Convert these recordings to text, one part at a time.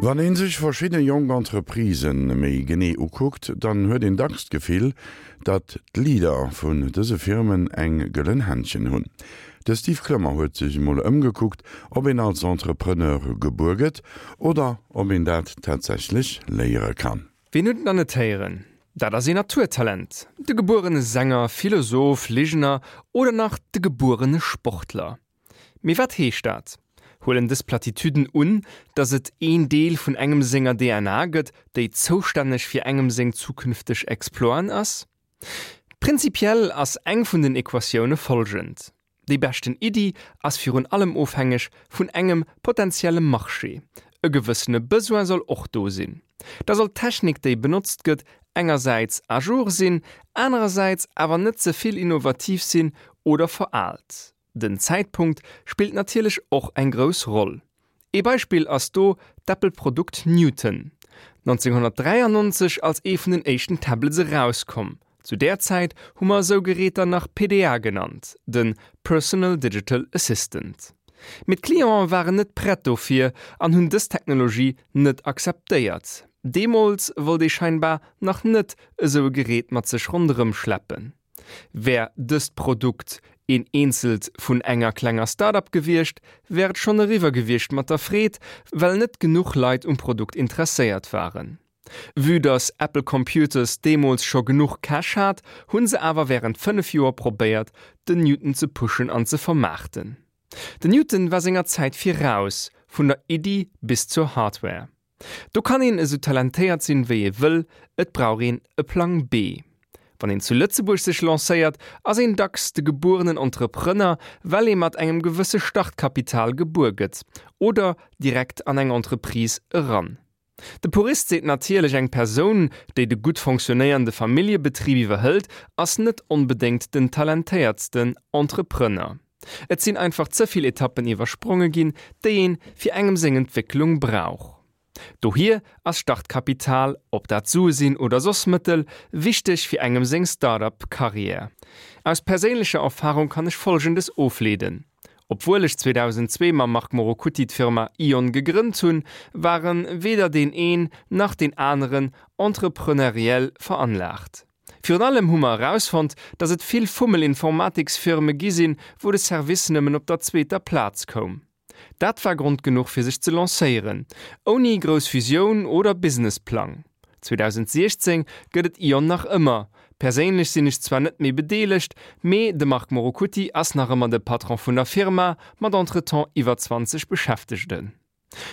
Wann ee sech verschidde jonk Entreprisë méi genee ukuckt, dann huet een dacks d'Gefill, datt d'Leader vun dëse Firmen eng gëllen Händchen hunn. De Steve Clement huet sech emol ëmgekuckt, ob een als Entrepreneur gebuer gëtt oder ob een dat tatsächlech léiere kann. Wien huet et nach net héieren? Dat ass een Naturtalent, de gebuerene Sänger, Philosoph, Ligener oder nach de gebuerene Sportler. Mee wat heescht dat? Huelen dës Platitüden un, datt et een Deel vun engem senger DNA gëtt, déi zoustänneg fir engem seng zukünfteg Exploiten ass? Prinzipiell ass eng vun den Equatioune folgend, Déi beschten Iddi ass virun allem ofhängeg vun engem potentielle Marché. E gewëssene Besoin soll och do sinn. Da soll d'Technik, déi benotzt gëtt, engersäits à jour sinn, anerersäits awer net ze vill innovativ sinn oder veraalt. Den Zäitpunkt spillt natierlech och eng grouss Roll. Ee Beispill ass do d'Apple-Produkt Newton, 1993 als ee vun den éischten Tablets erauskomm. Zu där Zäit hu mer esou Geräter nach PDA genannt, de Personal Digital Assistant. Mee d'Clienten waren net prett dofir an hunn dës Technologie net akzeptéiert. Deemools wollt ee scheinbar nach net esou e Gerät mat sech ronderëm schleppen. Wär dëst Produkt een eenzelt vun enger klenger Start-up gewiescht, wär et schonn eriwwer gewiescht mat der Freed, well net genuch Leit um Produkt interesséiert waren. Vue dass Apple Computers deemools scho genuch Cash hat, hunn se awer wärend 5 Joer probéiert, den Newton ze pushen an ze vermaarten. Den Newton war senger Zäit viraus, vun der Iddi bis zur Hardware. Do kann een esou talentéiert sinn wéi ee wëll, et brauch een e Plang B. Wann een zu Lëtzebuerg sech lancéiert, ass een dacks de gebuerenen Entrepreneur, well ee mat engem gewësse Startkapital gebuer gëtt oder direkt an eng Entreprise eran. De Purist seet natierlech, eng Persoun, déi de gutt fonctionnéierende Familljebetrib iwwerhëlt, ass net onbedéngt den talentéiertsten Entrepreneur. Et sinn einfach ze vill Etappen iwwerspronge ginn, déi een fir engem seng Entwécklung brauch. Dohier ass Startkapital, ob dat Sue sinn oder soss Mëttel, wichteg fir engem seng Start-up Karriär. Aus perséinlecher Erfahrung kann ech folgendes ofleeden, Obwuel ech 2002 mam Marc Morocutti d'Firma Ion gegrënnt hunn, waren weder deen een nach deen aneren entrepreneuriell veranlaagt. Virun allem hu mer erausfonnt, dass et vill Fummel-Informatiksfirme gi sinn, wou de Service nëmmen op der zweeter Plaz koum. Dat war Grond genuch fir sech ze lancéieren, ouni grouss Visioun oder Businessplang. 2016 gëtt et Ion nach ëmmer. Perséinlech sinn ech zwar net méi bedeelegt, mee de Marc Morocutti ass nach ëmmer de Patron vun der Firma, mat entretemps iwwer 20 Beschäftegten.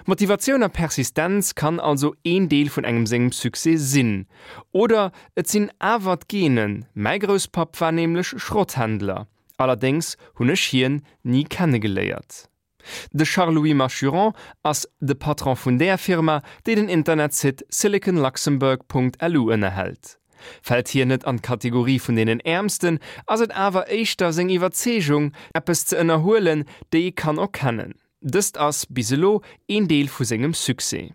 Motivatioun a Persistenz kann also een Deel vun engem sengem Succès sinn. Oder et sinn awer d'Genen, mäi Grousspapp war nämlech Schrotthändler, allerdéngs hunn ech hien ni kennegeléiert. De Charles-Louis Machuron ass de Patron vun där Firma, déi den Internetsite siliconluxembourg.lu ënnerhält. Fält hien net an d'Kategorie vun deenen Äermsten, ass et awer éischter seng Iwwerzeegung, eppes ze ënnerhuelen, déi ee kann erkennen. Dëst ass, bis elo, een Deel vu sengem Succès.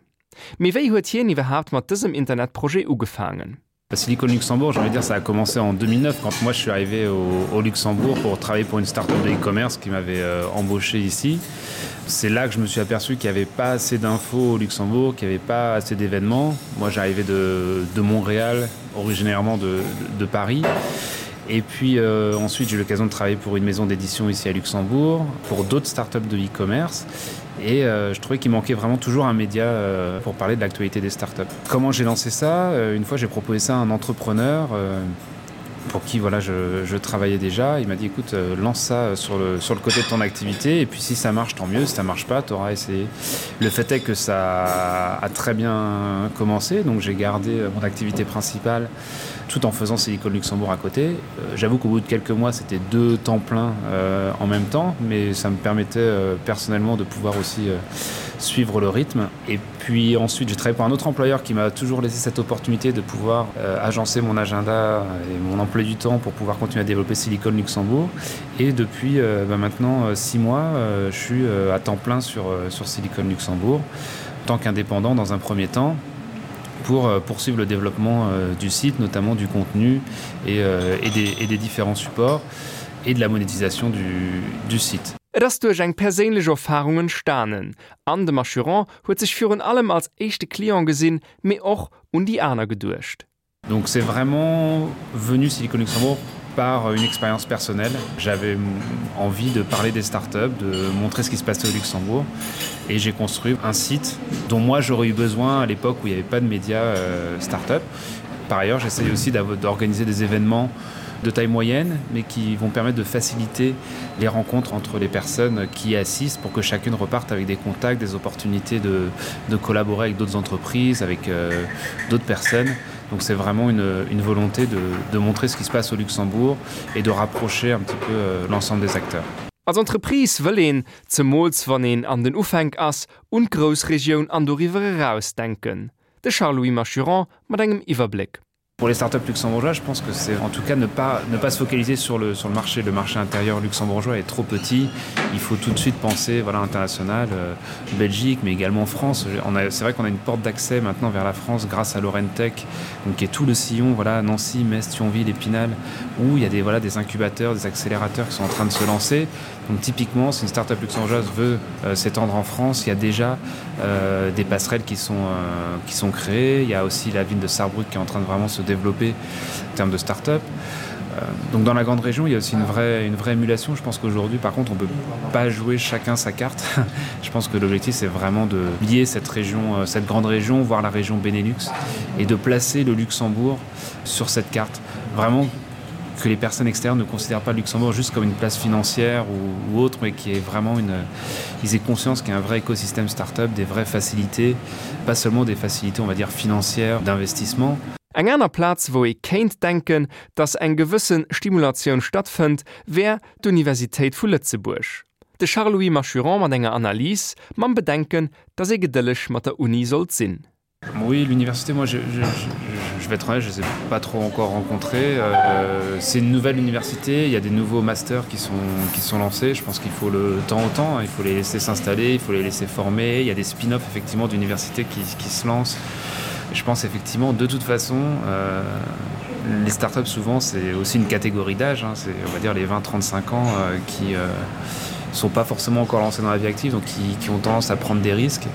Mee wéi huet hien iwwerhaapt mat dësem Internetprojet ugefaangen? Silicon Luxembourg, j'ai envie de dire ça a commencé en 2009 quand moi je suis arrivé au, au Luxembourg pour travailler pour une start-up de e-commerce qui m'avait euh, embauché ici. C'est là que je me suis aperçu qu'il n'y avait pas assez d'infos au Luxembourg, qu'il n'y avait pas assez d'événements. Moi j'arrivais de, de Montréal, originairement de, de, de Paris. Et puis euh, ensuite j'ai eu l'occasion de travailler pour une maison d'édition ici à Luxembourg, pour d'autres startups de e-commerce. Et euh, je trouvais qu'il manquait vraiment toujours un média euh, pour parler de l'actualité des startups. Comment j'ai lancé ça euh, Une fois j'ai proposé ça à un entrepreneur euh, pour qui voilà, je, je travaillais déjà. Il m'a dit écoute, euh, lance ça euh, sur le, sur le côté de ton activité et puis si ça marche, tant mieux, si ça marche pas, tu auras essayé. Le fait est que ça a très bien commencé, donc j'ai gardé euh, mon activité principale tout en faisant Silicon Luxembourg à côté. Euh, J'avoue qu'au bout de quelques mois, c'était deux temps pleins euh, en même temps, mais ça me permettait euh, personnellement de pouvoir aussi euh, suivre le rythme. Et puis ensuite, j'ai travaillé pour un autre employeur qui m'a toujours laissé cette opportunité de pouvoir euh, agencer mon agenda et mon emploi du temps pour pouvoir continuer à développer Silicon Luxembourg. Et depuis euh, bah, maintenant euh, six mois, euh, je suis euh, à temps plein sur, euh, sur Silicon Luxembourg, en tant qu'indépendant dans un premier temps pour euh, poursuivre le développement euh, du site, notamment du contenu et, euh, et, des, et des différents supports et de la monétisation du, du site. Et ass duerch eng perséinlech Erfarung entstanen an de Machuron huet sech virun allem als éischte Client gesinn, mee och un déi aner geduecht. Donc c'est vraiment venu Silicon Luxembourg par une expérience personnelle. J'avais envie de parler des startups, de montrer ce qui se passait au Luxembourg et j'ai construit un site dont moi j'aurais eu besoin à l'époque où il n'y avait pas de médias euh, startup. Par ailleurs, j'essaye aussi d'organiser des événements de taille moyenne, mais qui vont permettre de faciliter les rencontres entre les personnes qui assistent pour que chacune reparte avec des contacts, des opportunités de, de collaborer avec d'autres entreprises, avec euh, d'autres personnes. Donc c'est vraiment une, une volonté de, de montrer ce qui se passe au Luxembourg et de rapprocher un petit peu euh, l'ensemble des acteurs. Als Entreprise wëll een, zemools wann een an den Ufänk ass, un d'Groussregioun an doriwwer eraus denken. De Charles-Louis Machuron mat engem Iwwerbléck. Pour les startups luxembourgeois, je pense que c'est en tout cas ne pas, ne pas se focaliser sur le, sur le marché. Le marché intérieur luxembourgeois est trop petit. Il faut tout de suite penser voilà, international, euh, Belgique, mais également France. C'est vrai qu'on a une porte d'accès maintenant vers la France grâce à Lorentech, donc qui est tout le sillon, voilà, Nancy, Metz, Thionville, Épinal, où il y a des, voilà, des incubateurs, des accélérateurs qui sont en train de se lancer. Donc typiquement, si une startup luxembourgeoise veut euh, s'étendre en France, il y a déjà euh, des passerelles qui sont, euh, qui sont créées. Il y a aussi la ville de Sarrebruck qui est en train de vraiment se développer en termes de start-up. Euh, donc dans la grande région, il y a aussi une vraie, une vraie émulation. Je pense qu'aujourd'hui, par contre, on ne peut pas jouer chacun sa carte. Je pense que l'objectif, c'est vraiment de lier cette région, euh, cette grande région, voire la région Benelux, et de placer le Luxembourg sur cette carte. Vraiment que les personnes externes ne considèrent pas le Luxembourg juste comme une place financière ou, ou autre, mais qui est vraiment une ils aient conscience qu'il y a un vrai écosystème start-up, des vraies facilités, pas seulement des facilités on va dire financières d'investissement. Eng aner Plaz, wou ee kéint denken, datt eng gewësse Stimulatioun stattfënnt, wär d'Universitéit vu Lëtzebuerg. De Charles-Louis Machuron mat enger Analys, mam Bedenken, datt ee gedëlleg mat der Uni sollt sinn. Oui, l'université, moi je, je, je, je vais être honnête, je ne les ai pas trop encore rencontrés. Euh, c'est une nouvelle université, il y a des nouveaux masters qui sont, qui sont lancés. Je pense qu'il faut le temps au temps, il faut les laisser s'installer, il faut les laisser former. Il y a des spin-offs effectivement d'universités qui, qui se lancent. Je pense effectivement de toute façon euh, les startups souvent c'est aussi une catégorie d'âge, c'est on va dire les 20-35 ans euh, qui euh, sont pas forcément encore lancés dans la vie active, donc qui, qui ont tendance à prendre des risques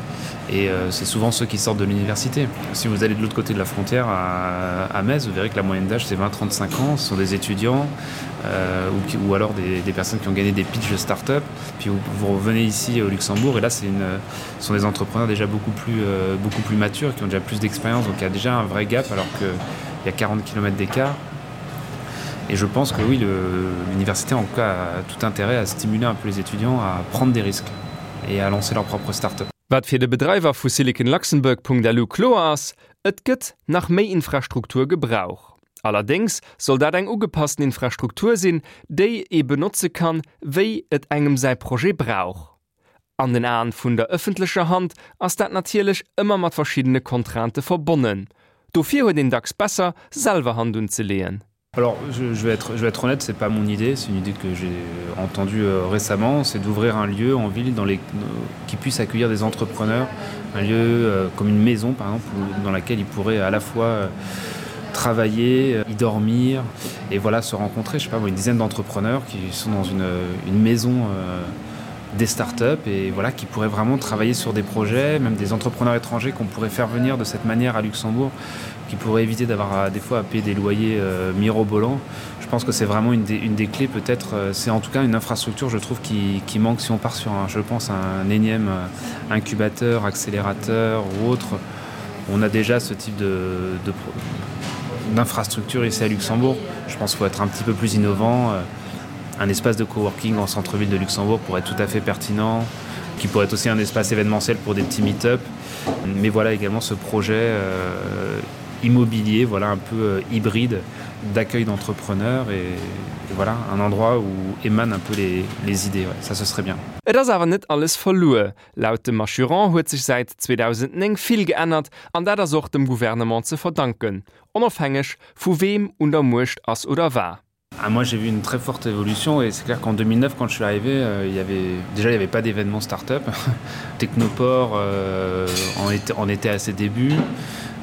et euh, c'est souvent ceux qui sortent de l'université. Si vous allez de l'autre côté de la frontière à, à Metz, vous verrez que la moyenne d'âge c'est 20-35 ans, ce sont des étudiants euh, ou, qui, ou alors des, des personnes qui ont gagné des pitchs de start-up. Puis vous, vous revenez ici au Luxembourg et là c'est une ce sont des entrepreneurs déjà beaucoup plus, euh, beaucoup plus matures, qui ont déjà plus d'expérience, donc il y a déjà un vrai gap alors qu'il y a 40 km d'écart. Et je pense que oui, l'université en tout cas a tout intérêt à stimuler un peu les étudiants à prendre des risques et à lancer leur propre start-up. Wat fir de Bedreiwer vu SiliconLuxembourg.lu kloer ass, Et gëtt nach méi Infrastruktur gebrauch. Allerdéngs soll dat eng ugepassten Infrastruktur sinn, déi ee benotze kann, wéi et engem säi Projet brauch. An den Aen vun der ëffentlecher Hand ass dat natierlech ëmmer mat verschiddene Contraintë verbonnen. Dofir huet een dacks besser, selwer Hand unzeleeën. Alors je, je, vais être, je vais être honnête, c'est pas mon idée, c'est une idée que j'ai entendue euh, récemment, c'est d'ouvrir un lieu en ville dans les, euh, qui puisse accueillir des entrepreneurs, un lieu euh, comme une maison par exemple, où, dans laquelle ils pourraient à la fois euh, travailler, euh, y dormir et voilà se rencontrer, je sais pas, une dizaine d'entrepreneurs qui sont dans une, une maison euh, des startups et voilà qui pourraient vraiment travailler sur des projets, même des entrepreneurs étrangers qu'on pourrait faire venir de cette manière à Luxembourg, qui pourrait éviter d'avoir des fois à payer des loyers euh, mirobolants. Je pense que c'est vraiment une des, une des clés peut-être euh, c'est en tout cas une infrastructure je trouve qui, qui manque si on part sur un je pense un énième euh, incubateur, accélérateur ou autre. On a déjà ce type de, de d'infrastructure ici à Luxembourg. Je pense qu'il faut être un petit peu plus innovant. Euh, un espace de coworking en centre-ville de Luxembourg pourrait être tout à fait pertinent, qui pourrait être aussi un espace événementiel pour des petits meet-up. Mais voilà également ce projet euh, immobilier, voilà un peu euh, hybride d'accueil d'entrepreneurs et, et voilà un endroit où émanent un peu les, les idées. Ouais, ça ce serait bien. Et ass awer net alles verluer. Laut dem Assurant huet sech säit 2009 vill geännert an dat ass och dem Gouvernement ze verdanken, onofhängeg vu weem un der Muecht ass oder war. Ah, moi j'ai vu une très forte évolution et c'est clair qu'en 2009 quand je suis arrivé euh, il y avait déjà il n'y avait pas d'événement start-up Technoport euh, en, était, en était à ses débuts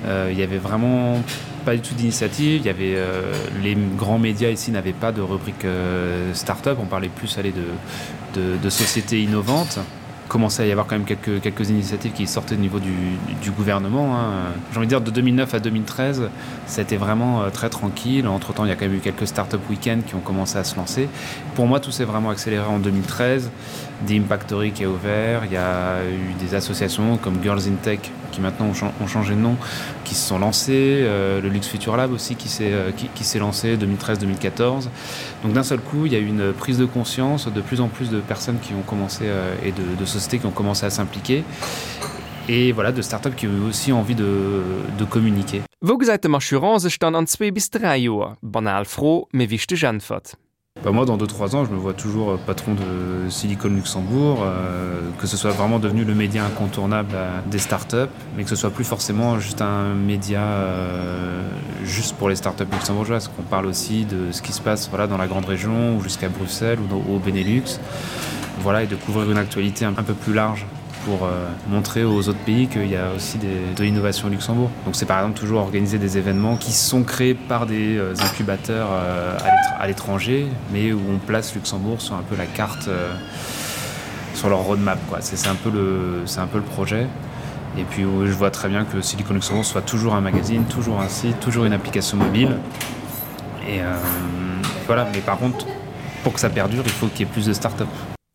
euh, il y avait vraiment pas. pas du tout d'initiative. Il y avait euh, les grands médias ici n'avaient pas de rubrique euh, start-up, on parlait plus aller de, de, de sociétés innovantes commençait à y avoir quand même quelques, quelques initiatives qui sortaient au niveau du, du gouvernement. J'ai envie de dire de 2009 à 2013, ça a été vraiment euh, très tranquille. Entre temps, il y a quand même eu quelques start-up week-ends qui ont commencé à se lancer. Pour moi, tout s'est vraiment accéléré en 2013. Des Impactory qui a ouvert, il y a eu des associations comme Girls in Tech qui maintenant ont, ont changé de nom, qui se sont lancées, euh, le Lux Future Lab aussi qui s'est euh, qui, qui s'est lancé 2013-2014. Donc d'un seul coup, il y a eu une prise de conscience de plus en plus de personnes qui ont commencé euh, et de, de sociétés qui ont commencé à s'impliquer et voilà de start-up qui ont aussi envie de, de communiquer. Wou gesäit de Machuron sech dann an zwee bis 3 Joer? Banal Fro, mee wichteg Äntwert. Bah moi dans 2 3 ans je me vois toujours euh, patron de Silicon Luxembourg euh, que ce soit vraiment devenu le média incontournable euh, des startups mais que ce soit plus forcément juste un média euh, juste pour les startups luxembourgeoises qu'on parle aussi de ce qui se passe voilà dans la grande région ou jusqu'à Bruxelles ou dans, au Benelux voilà et de couvrir une actualité un, un peu plus large pour euh, montrer aux autres pays qu'il y a aussi des, de l'innovation au Luxembourg. Donc c'est par exemple toujours organiser des événements qui sont créés par des euh, incubateurs euh, à l'étranger, mais où on place Luxembourg sur un peu la carte euh, sur leur roadmap C'est un, peu le, un peu le projet. Et puis où je vois très bien que Silicon Luxembourg soit toujours un magazine, toujours un site, toujours une application mobile. Et euh, voilà, mais par contre, pour que ça perdure, il faut qu'il y ait plus de start-up.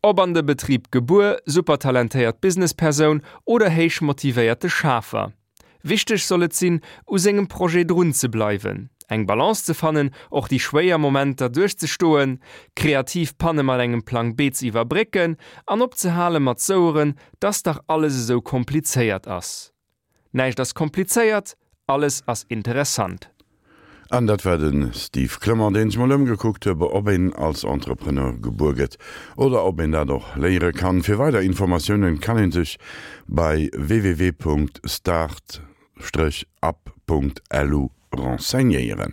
Ob an de Betrib gebuer, supertalentéiert Businesspersoun oder héich motivéierte Schafer. Wichteg soll et sinn, u sengem Projet drun ze bleiwen, eng Balance ze fannen, och déi schwéier Momenter duerchzestoen, kreativ Panne mat engem Plang B ze iwwerbrécken an opzehale mat soueren, dass dach alles esou komplizéiert ass. Näischt ass komplizéiert, alles ass interessant. An dat war de Steve Clement, deen sech mol ëmgekuckt huet, ob een als Entrepreneur gebuer gëtt oder ob een dat och léiere kann. Fir weider Informatiounen kann een sech bei www.start-up.lu renseignéieren.